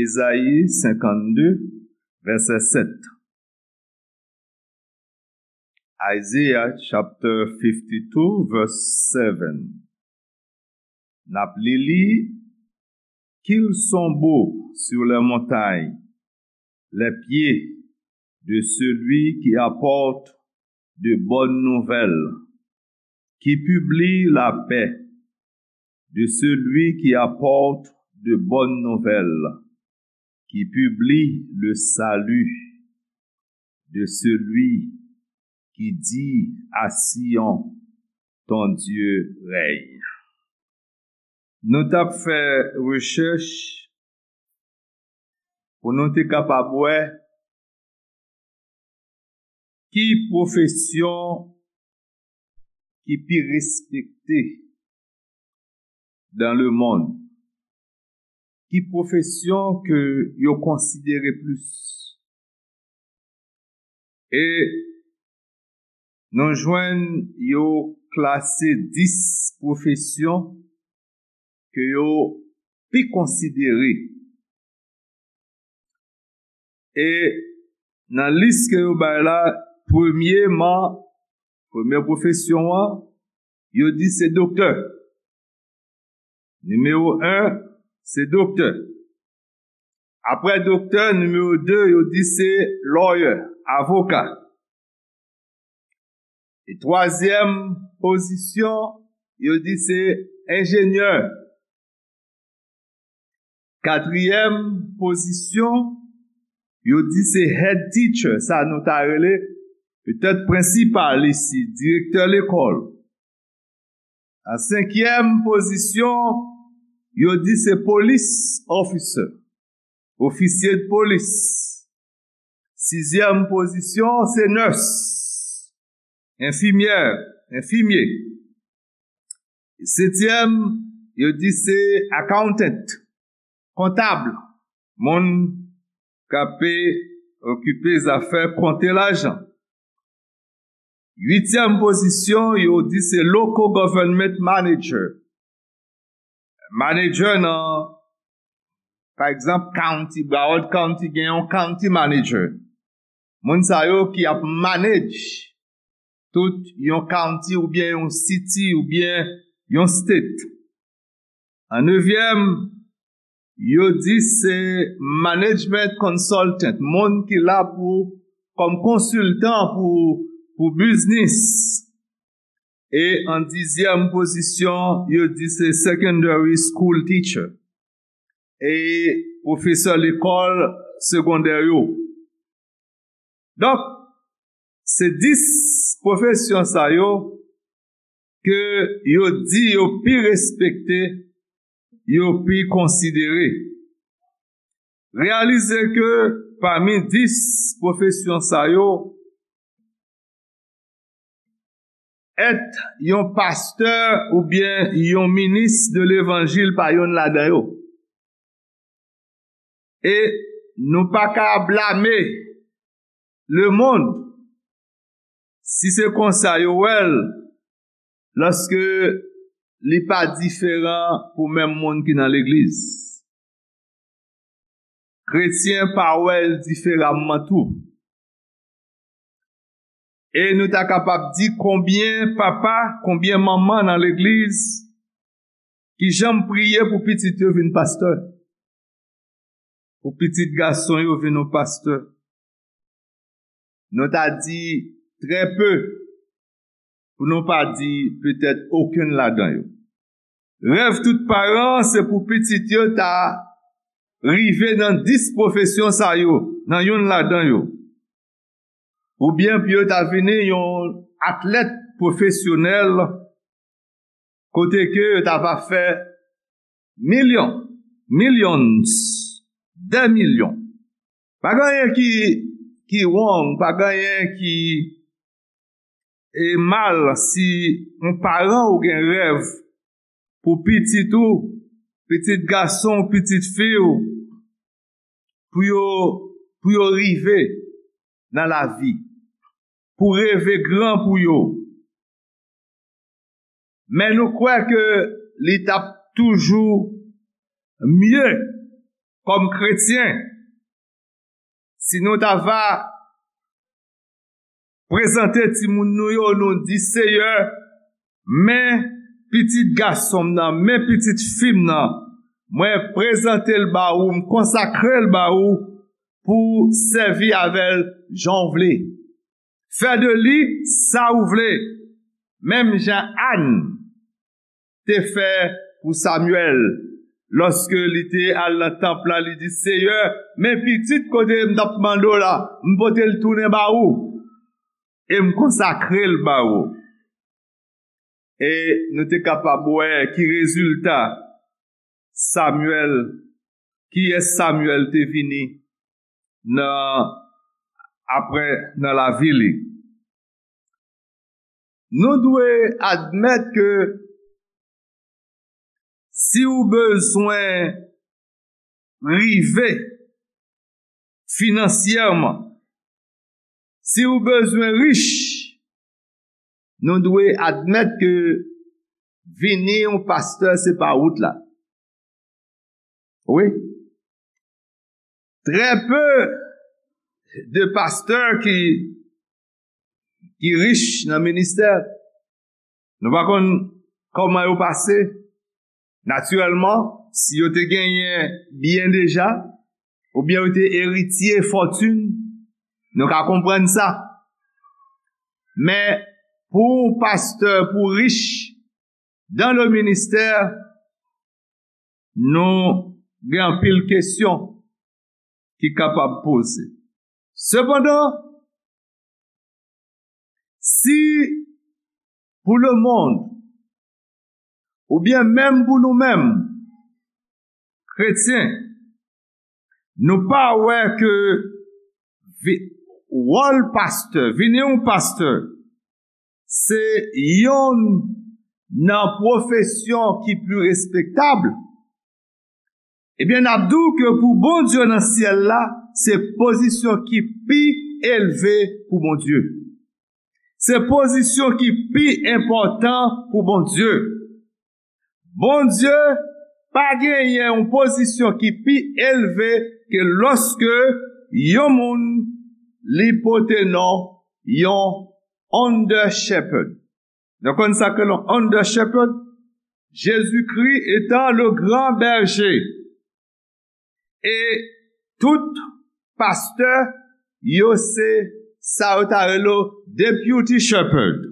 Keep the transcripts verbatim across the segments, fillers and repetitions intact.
Ezayi senkannde, vèsè sèt. Isaiah chapter fifty-two, verse seven. N ap li li, Qu'ils sont beaux sur les montagnes, les pieds de celui qui apporte de bonnes nouvelles, qui publie la paix, de celui qui apporte de bonnes nouvelles, qui publie le salut, de celui qui dit à Sion, ton Dieu règne. Nou t ap fè rechèch pou nou te kapab wè ki pwofesyon ki pi respekte dans le monde, ki pwofesyon ke yo konsidere plis. E nou jwenn yo klase dis pwofesyon ke yo pi konsidere. E nan lis ke yo bay la, premyeman, premye pwofesyon an, yo di se doktè. Nimewo en, se doktè. Apre doktè, nimewo de, yo di se lawyer, avoka. E twazyèm pozisyon, yo di se enjenyè. Katriyèm pozisyon, yo di se head teacher, sa nou ta rele petèt prensipal isi, direktè lekòl. An senkyèm pozisyon, yo di se police officer, ofisye de polis. Sizyèm pozisyon, se nurse, enfimyè, enfimye. Setyèm, yo di se accountant, kontab, moun k ap okipe zafè konte lajan. Uityèm pozisyon, yo di se local government manager. Manager nan, pa egzanp, county, Broward County gen yon county manager. Moun sa yo ki ap manage tout yon county oubyen yon city oubyen yon state. An nevyèm, yo di se management consultant, moun ki la pou, kòm konsiltan pou, pou biznis. E an dizyèm pozisyon, yo di se secondary school teacher, e pwofesè lekòl segondè yo. Donk, se dis pwofesyon sa yo ke yo di yo pi respekte, yo pi konsidere. Reyalize ke pami dis pwofesyon sa yo, èt yon pastè oubyen yon minis de levanjil pa yonn ladan yo. E nou pa ka blame lemonn si se konsa yo wè l, lòske li pa diferan pou menm moun ki nan legliz. Kretyen pa wè l diferaman tou. E nou ta kapab di konbyen papa, konbyen manman nan legliz ki janm priye pou pitit yo vin pastè, pou pitit gason yo vin yon pastè. Nou ta di trè pe, pou nou pa di petèt okenn ladan yo. Rèv tout paran se pou pitit yo ta rive nan dis pwofesyon sa yo, nan yonn ladan yo. Oubyen pou yo ta vini yon atlèt pwofesyonèl, kote ke yo ta va fè milyon, millions, dè milyon. Pa gen anyen ki, ki wrong, pa gen anyen ki e mal si yon paran ou gen rèv pou pitit ou, pitit gason, pitit fi w, pou yo, pou yo rive nan lavi, pou reve gran pou yo. Men nou kwè ke li t ap toujou mye kòm kretyen, si nou ta va prezante timoun nou yo, nou di, Seyè, men pitit gason m nan, men pitit fi m nan, mwen prezante l ba ou, m konsakre l ba ou pou w sèvi avè l jan w vle. Fè de li sa ou vle, menm jan Ann te fè pou Samyèl. Lòske li te al nan tanp la, li di, Seyè, men pitit kote m t ap mande w la, m pote l tounen ba ou, e m konsakre l ba ou. E nou te kapab wè ki rezilta Samyèl, kiyès Samyèl te vini nan, apre nan lavi li. Nou dwe admèt ke si w bezwen rive finansyèman, si w bezwen rich, nou dwe admèt ke vini yon pastè se pa wout la. Wi. Très peu de pasteurs qui, qui riches nan ministè. Nou pa konn kòman yo pase. Natirèlman, si yo te genyen byen deja, oubyen yo te eritye fòtin, nou ka konprann sa. Men, pou yon pastè, pou rich, dans le ministère, nou gen anpil kesyon ki kapab poze. Sepandan, si pou lemonn, oubyen menm pou nou menm, kretyen, nou pa wè ke vi- wòl pastè, vini yon pastè, se yonn nan pwofesyon ki pi respektab, ebyen, n ap di w ke pou Bondye nan syèl la, se pozisyon ki pi elve pou Bondye. Se pozisyon ki pi enpòtan pou Bondye. Bondye pa genyen yon pozisyon ki pi elve ke lòske yon moun li pote non yon under shepherd. Nou konn sa ke yon under shepherd? Jezikri etan le gran bèje. E tout pastè yo se sa yo ta rele yo deputy shepherd.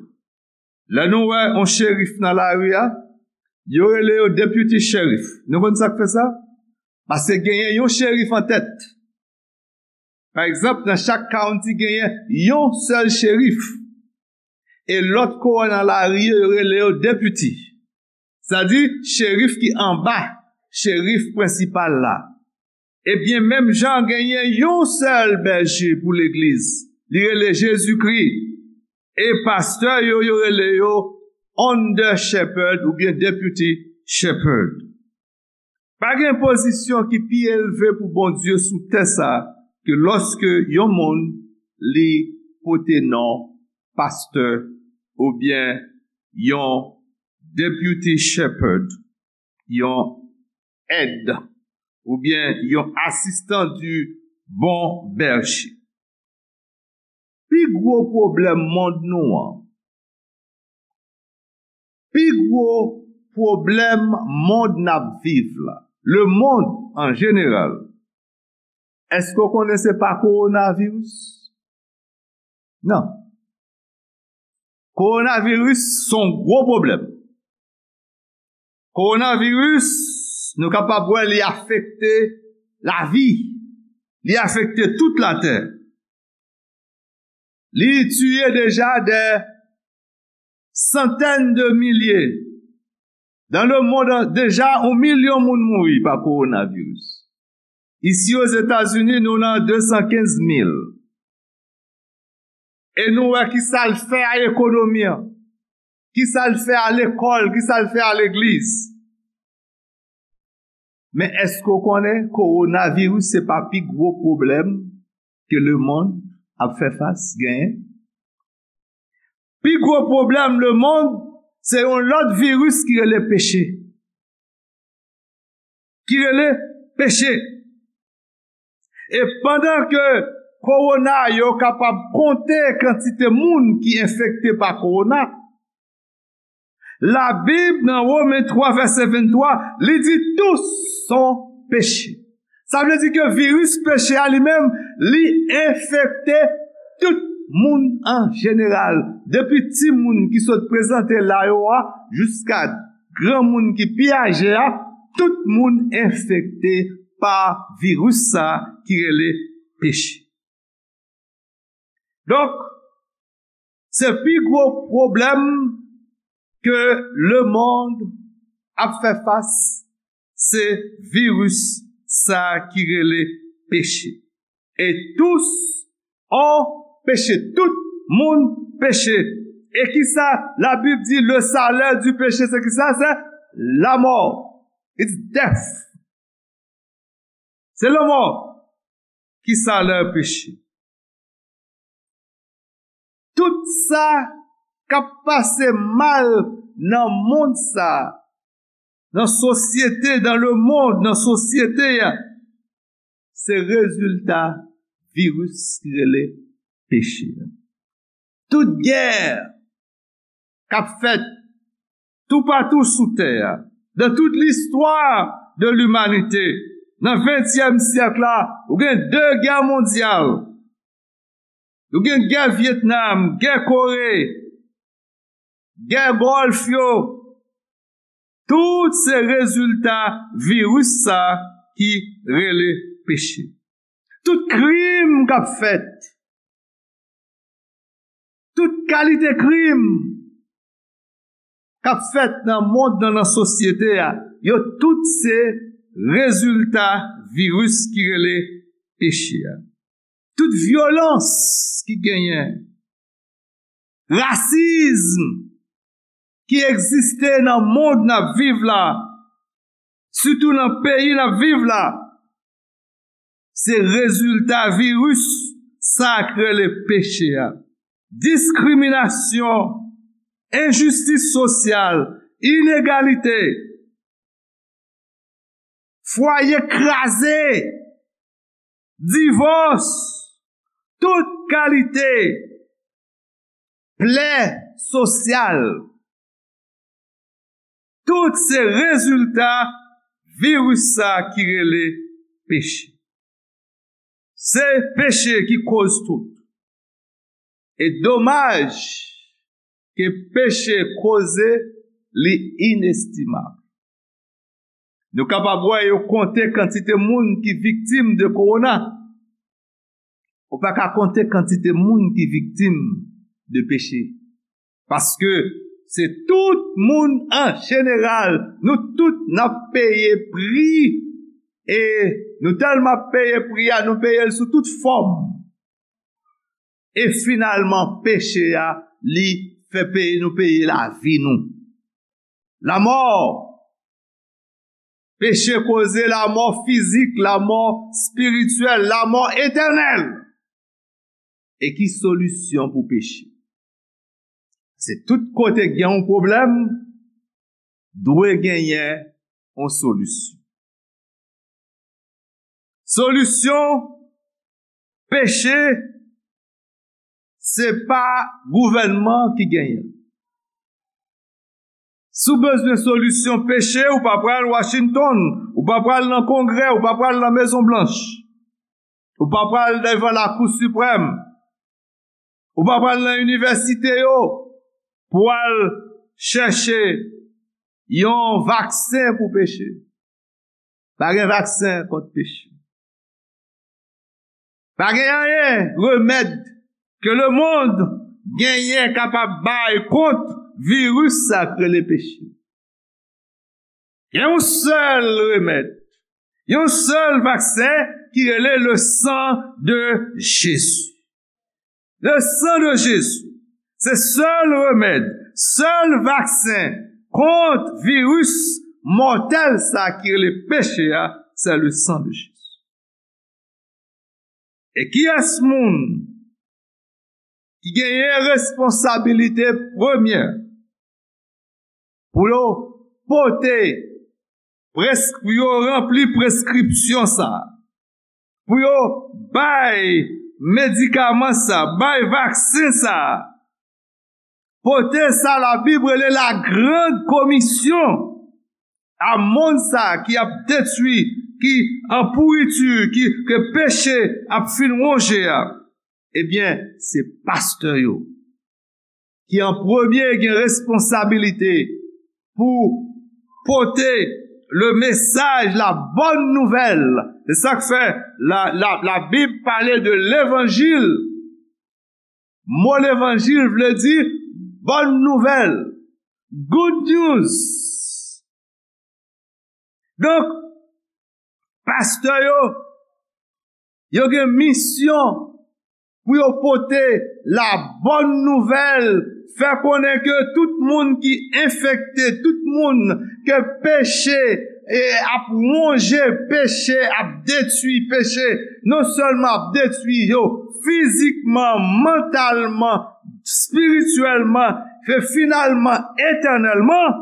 Lè nou wè yon cherif nan lari a, yo rele yo deputy sheriff. Nou konn sa k fè sa? Paske genyen yon cherif an tèt. Pa egzanp, nan chak county genyen yon sèl cherif. E lòt kowòn nan lari yo, yo rele yo deputy. Sa di, cherif ki anba cherif prensipal la. Ebyen, menm jan genyen yon sèl bèje pou legliz, li rele Jezikri. E pastè yo, yo rele yo under shepherd oubyen deputy shepherd. Pa gen pozisyon ki pi elve pou Bondye sou tè sa a ke lòske yon moun li pote non pastè oubyen yon deputy shepherd, yon èd oubyen yon asistan du bon bèje. Pi gwo pwoblèm mond nou an, pi gwo pwoblèm mond n ap viv la, lemonn an jeneral, èske w konnen se pa kowonaviris? Non. Kowonaviris se yon gwo pwoblèm. Kowonaviris, nou kapab wè li afekte lavi. Li afekte tout latè. Li tiye deja dè santèn de milye. Dans le monde, deja yon milyon moun mouri pa kowonaviris. Isi Ozetazini, nou nan de san kenz mil. E nou wè ki sa l fè a ekonomi an, ki sa l fè a lekòl, ki sa l fè a legliz. Men èske w konnen kowonaviris se pa pi gwo pwoblèm ke lemonn ap fè fas genyen? Pi gwo pwoblèm lemonn se yon lòt viris ki rele peche. Ki rele peche. E pandan ke kowona yo kapab konte kantite moun ki enfekte pa kowona, Labib nan Women twa vèsè venntwa, li di tous sont péchés. Sa vle di ke viris peche a li menm, li enfekte tout moun an jeneral. Depi timoun ki sot prezante la yo a, jiska granmoun ki pi aje a, tout moun enfekte pa viris sa ki rele peche. Donk, se pi gwo pwoblèm ke lemonn ap fè fas, se viris sa ki rele peche. Et tous ont péché. Tout moun peche. E kisa Labib di, le salaire du péché, se kisa? Se lamò. It's death. Se lanmò ki salè peche. Tout sa k ap pase mal nan mond sa, nan sosyete, dans le monde, nan sosyete a, se rezilta viris ki rele peche a. Tout gè k ap fèt toupatou sou tè a, dans toute l'histoire de l'humanité, nan ventyèm syèk la, ou gen de gè mondyal, ou gen gè Vyetnam, gè Kore, gè Gòlf yo, tout se rezilta viris sa ki rele peche. Tout krim k ap fèt, tout kalite krim k ap fèt nan mond nan, nan sosyete a, yo tout se rezilta viris ki rele peche a. Tout vyolans ki genyen, rasizm ki egziste nan mond n ap viv la, sitou nan peyi n ap viv la, se rezilta viris sa k rele peche a. Diskriminasyon, enjistis sosyal, inegalite, fwaye kraze, divòs, tout kalite plè sosyal. Tout se rezilta viris sa ki rele peche. Se peche ki koz tout. E domaj ke peche koze li inestimab. Nou kapab wè yo konte kantite moun ki viktim de kowona. Ou pa ka konte kantite moun ki viktim de peche. Paske se tout moun an jeneral, nou tout n ap peye pri, e nou tèlman ap peye pri a, nou peye l sou tout fòm. E finalman, peche a, li fè peye nou peye lavi nou. Lamò. Peche koze lamò fizik, lamò espirityèl, lamò etènèl. E ki solisyon pou peche? Se tout kote gen yon pwoblèm, dwe genyen yon solisyon. Solisyon peche, se pa gouvènman ki genyen l. Si w bezwen solisyon peche, ou pa pral Washington, ou pa pral nan Kongrè, ou pa pral nan Mezon Blanch, ou pa pral devan Lakou Siprèm, ou pa pral nan inivèsite yo pou al chèche yon vaksen pou peche. Pa gen vaksen kont peche. Pa gen anyen, remèd ke lemonn genyen kapab bay kont viris sa k rele peche. Gen yon sèl remèd, yon sèl vaksen ki rele le sang de Jésus. Le sang de Jésus, se sèl remèd, sèl vaksen kont viris mòtèl sa ki rele peche a, se le sang de Jésus. E kiyès moun ki genyen responsabilite premyè pou yo pote preskri-, yo ranpli preskripsyon sa a? pou yo bay medikaman sa, bay vaksen sa, pote sa Labib rele la grande commission a monn sa ki ap detwi, ki an pouriti, ki, ke peche ap fin wonje a. Ebyen, se pastè yo ki an premye gen responsabilite pou pote le message, la bonne nouvelle. Se sa k fè la, la, Labib pale de levanjil. Mo levanjil vle di bonne nouvelle, good news. Donk, pastè yo, yo gen misyon pou yo pote la bonne nouvelle, fè konnen ke tout moun ki enfekte, tout moun ke peche e ap wonje, peche ap detwi, peche non sèlman ap detwi yo fizikman, mantalman, espirityèlman, e finalman etènèlman,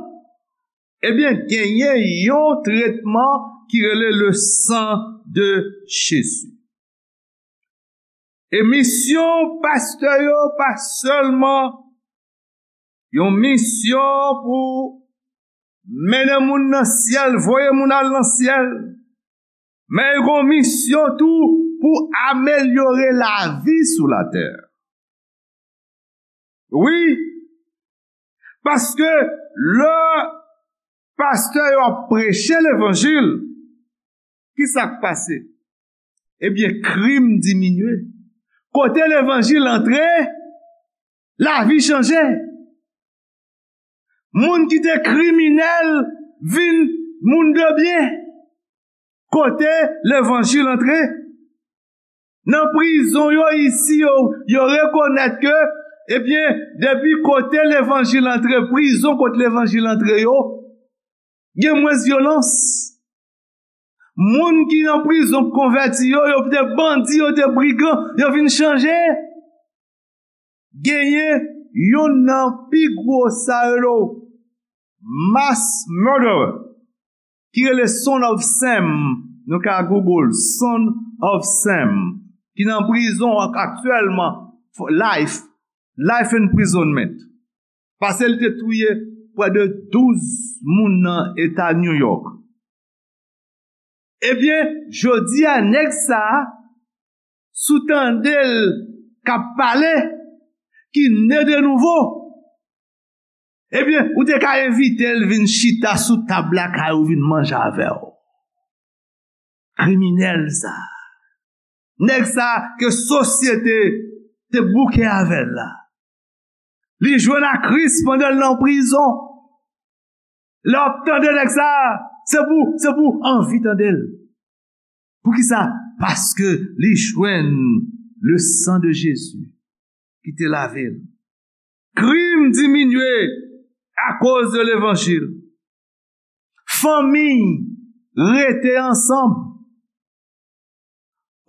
ebyen, genyen yon tretman ki rele le sang de Jésus. E misyon pastè yo pa sèlman yon misyon pou mennen moun nan syèl, voye moun al nan syèl, men yo gen yon misyon tou pou amelyore lavi sou latè. Wi, paske lè pastè yo ap preche levanjil, ki sa k pase? Ebyen, krim diminye. Kote levanjil antre, lavi chanje. Moun ki te kriminèl vin moun de byen. Kote levanjil antre? Nan prizon yo isi, yo, yo rekonèt ke, ebyen, depi kote levanjil antre, prizon kote levanjil antre yo, gen mwens vyolans. Moun ki nan prizon k konvèti yo, yo te bandi, yo te brigan, yo vin chanje. Genyen youn nan pi gwo sa yo rele mass murderer, ki rele Son of Sam. Nou ka Google Son of Sam, ki nan prizon ak-, aktyèlman, for life, life imprisonment. Paske li te touye prè de douz moun nan eta New York. Ebyen, jodi a, nèg sa a, si w tande l k ap pale, ki ne de nouvo, ebyen, ou te ka envite l vin chita sou tab lakay ou, vin manje avè w. Kriminèl sa a. Nèg sa a ke sosyete te bouke avè l la. Li jwenn a Kris pandan l nan prizon. Lè w ap tande nèg sa a, se pou, se pou anvi tande l. Poukisa? Paske li jwenn le sang de Jésus ki te lave l. Krim diminye akoz de levanjil. Fanmi rete ansanm.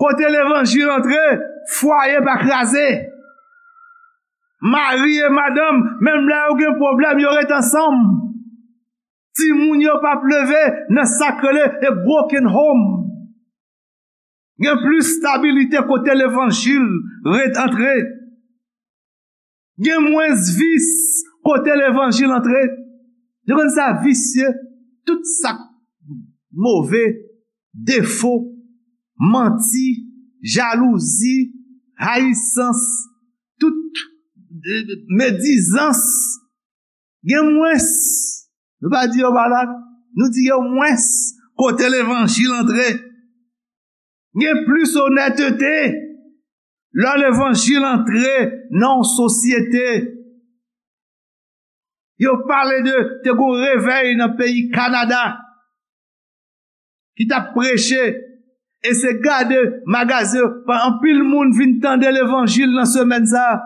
Kote levanjil antre, fwaye pa kraze. Mari e madanm, menm lè yo gen pwoblèm, yo ret ansanm. Timoun yo p ap leve nan sa k rele a broken home. Gen plis stabilite kote levanjil ret antre. Gen mwens vis kote levanjil antre. Yo konn sa visye, tout sa k move, defo, manti, jalouzi, rayisans, tout, eh, medizans. Gen mwens. Nou pa di yo pa la, nou di yo mwens kote levanjil antre. Gen plis onètete lè levanjil antre nan yon sosyete. Yo pale de, te gen yon revèy nan peyi Kanada ki t ap preche, e se gade magazen, anpil moun vin tande levanjil nan semèn sa a.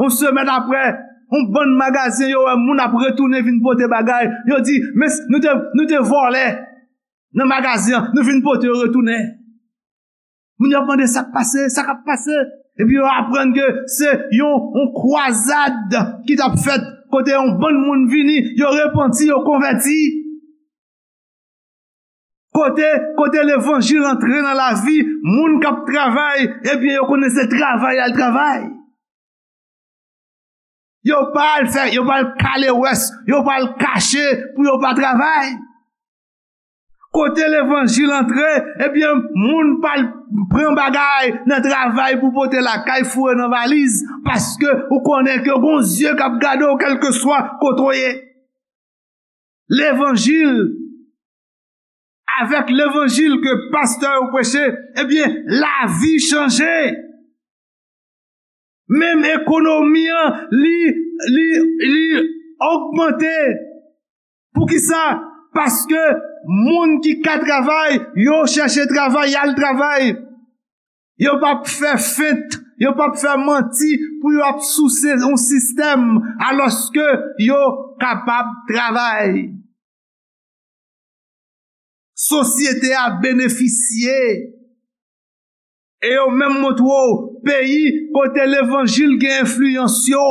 Yon semèn apre, yon bann magazen, yo wè moun ap retounen vin pote bagay. Yo di, "Men nou te, nou te vòlè nan magazen an, nou vin pote yo retounen." Moun yo ap mande sa k pase, sa k ap pase. Epi yo aprann ke se yon, yon kwazad ki t ap fèt, kote yon bann moun vini, yo repanti, yo konvèti. Kote, kote levanjil antre nan lavi moun k ap travay, ebyen, yo konnen se travay y al travay. Yo pa al fè, yo pa al kale wès, yo pa al kache pou yo pa travay. Kote levanjil antre, ebyen, moun pa al pran bagay nan travay pou pote lakay, foure nan valiz, paske ou konnen ke gon zye k ap gade w kèlkeswa kote w ye. Levanjil, avèk levanjil ke pastè yo preche, ebyen, lavi chanje. Menm ekonomi an, li, li, li ogmante. Poukisa? Paske moun ki ka travay, yo chèche travay, y al travay. Yo p ap fè fent, yo p ap fè manti pou yo ap souse yon sistèm, alòske yo kapab travay. Sosyete a benefisye. E yo menm montre w peyi kote levanjil gen enfliyans yo.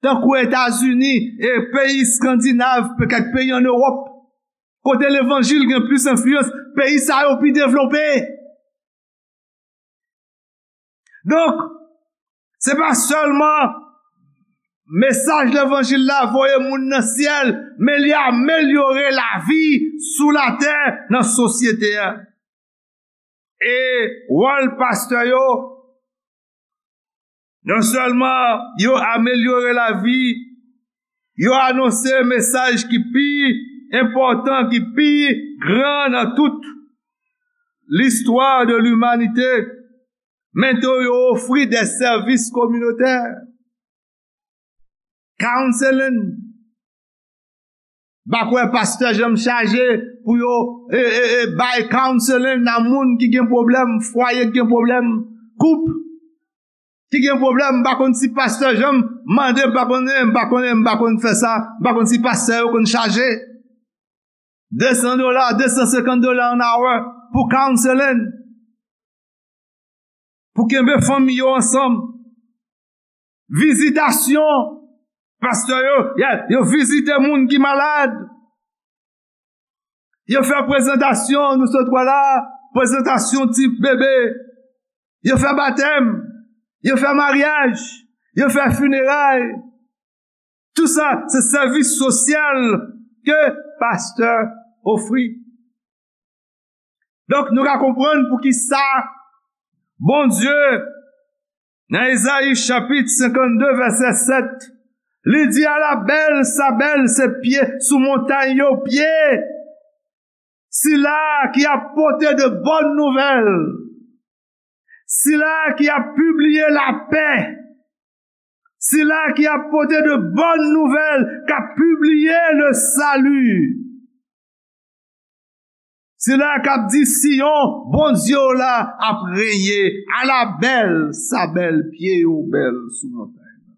Tankou Etazini e peyi Eskandinav, kèk peyi ann Ewòp, kote levanjil gen plis enfliyans, peyi sa yo pi devlope. Donk, se pa sèlman mesaj levanjil la voye moun nan syèl, men li amelyore lavi sou latè nan sosyete a. E wòl pastè yo, non sèlman yo amelyore lavi, yo anonse mesaj ki pi enpòtan, ki pi gran nan tout listwa de limanite, men tou yo ofri de sèvis kominotè. Counseling. M pa kwè pastè janm chaje pou yo, e, e, e, bay counseling nan moun ki gen pwoblèm, fwaye ki gen pwoblèm, koup ki gen pwoblèm. M pa konn si pastè janm mande, m pa konnen, m pa konnen, m pa konn fè sa, m pa konn si pastè yo konn chaje de san dola, de san senkant dola an awa pou counseling. Pou kenbe fanmi yo ansanm. Vizitasyon. Pastè yo, yeah, yo vizite moun ki malad. Yo fè prezantasyon, nou sot wè la, prezantasyon ti bebe. Yo fè batèm. Yo fè maryaj. Yo fè fineray. Tou sa, se sèvis sosyal ke pastè ofri. Donk, nou ka konprann poukisa Bondye, nan Ezayi chapit senkannde, vèsè sèt, li di, "Ala bèl sa bèl se pye sou montay yo, pye sila ki ap pote de bòn nouvèl, sila ki ap pibliye lapè, sila ki ap pote de bòn nouvèl, k ap pibliye le sali." Sila k ap di Siyon, Bondye w la ap renye, ala bèl sa bèl, pye yo bèl sou montay la.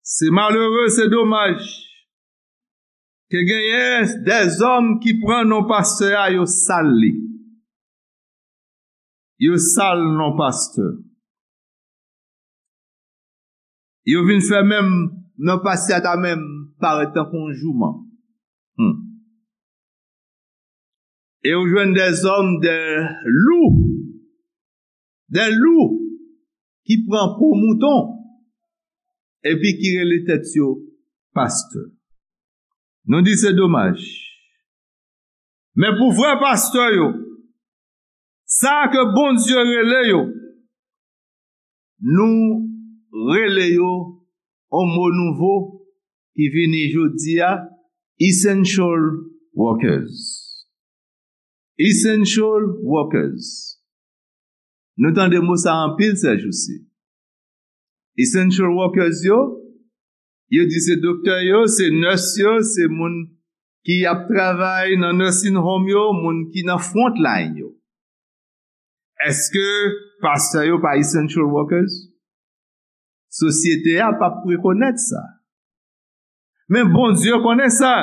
Se malere, se domaj ke genyen dèzòm ki pran non pastè a, yo sal li. Yo sal non pastè. Yo vin fè menm non pastè a ta menm parèt tankou yon jouman. Hmm. E ou jwenn dèzòm, de lou, de lou ki pran po mouton, epi ki rele tèt yo pastè. Nou di se domaj. Men pou vrè pastè yo, sa ke Bondye rele yo, nou rele yo yon mo nouvo ki vini jodi a, essential workers. Essential workers. Nou tande mo sa anpil sèjousi. Essential workers yo, yo di se doktè yo, se nurse yo, se moun ki ap travay nan nursing home yo, moun ki nan front line yo. Èske pastè yo pa essential workers? Sosyete a p ap rekonèt sa. Men Bondye konnen sa.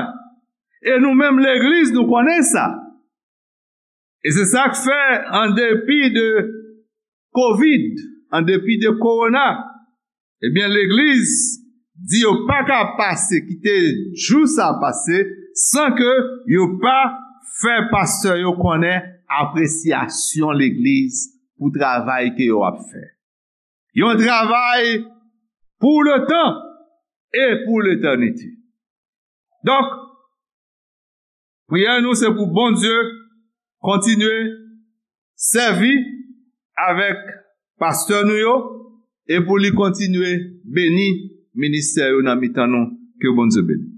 E nou menm legliz, nou konnen sa. E se sa k fè, an depi de kovid, an depi de kowona, ebyen, legliz di yo pa ka pase, kite jou sa pase, san ke yo pa fè pastè yo konnen apresyasyon legliz pou travay ke yo ap fè. Yon travay pou le tan e pou letènite. Donk, priyè nou se pou Bondye kontinye sèvi avèk pastè nou yo e pou li kontinye beni ministè yo nan mitan nou. Ke Bondye beni.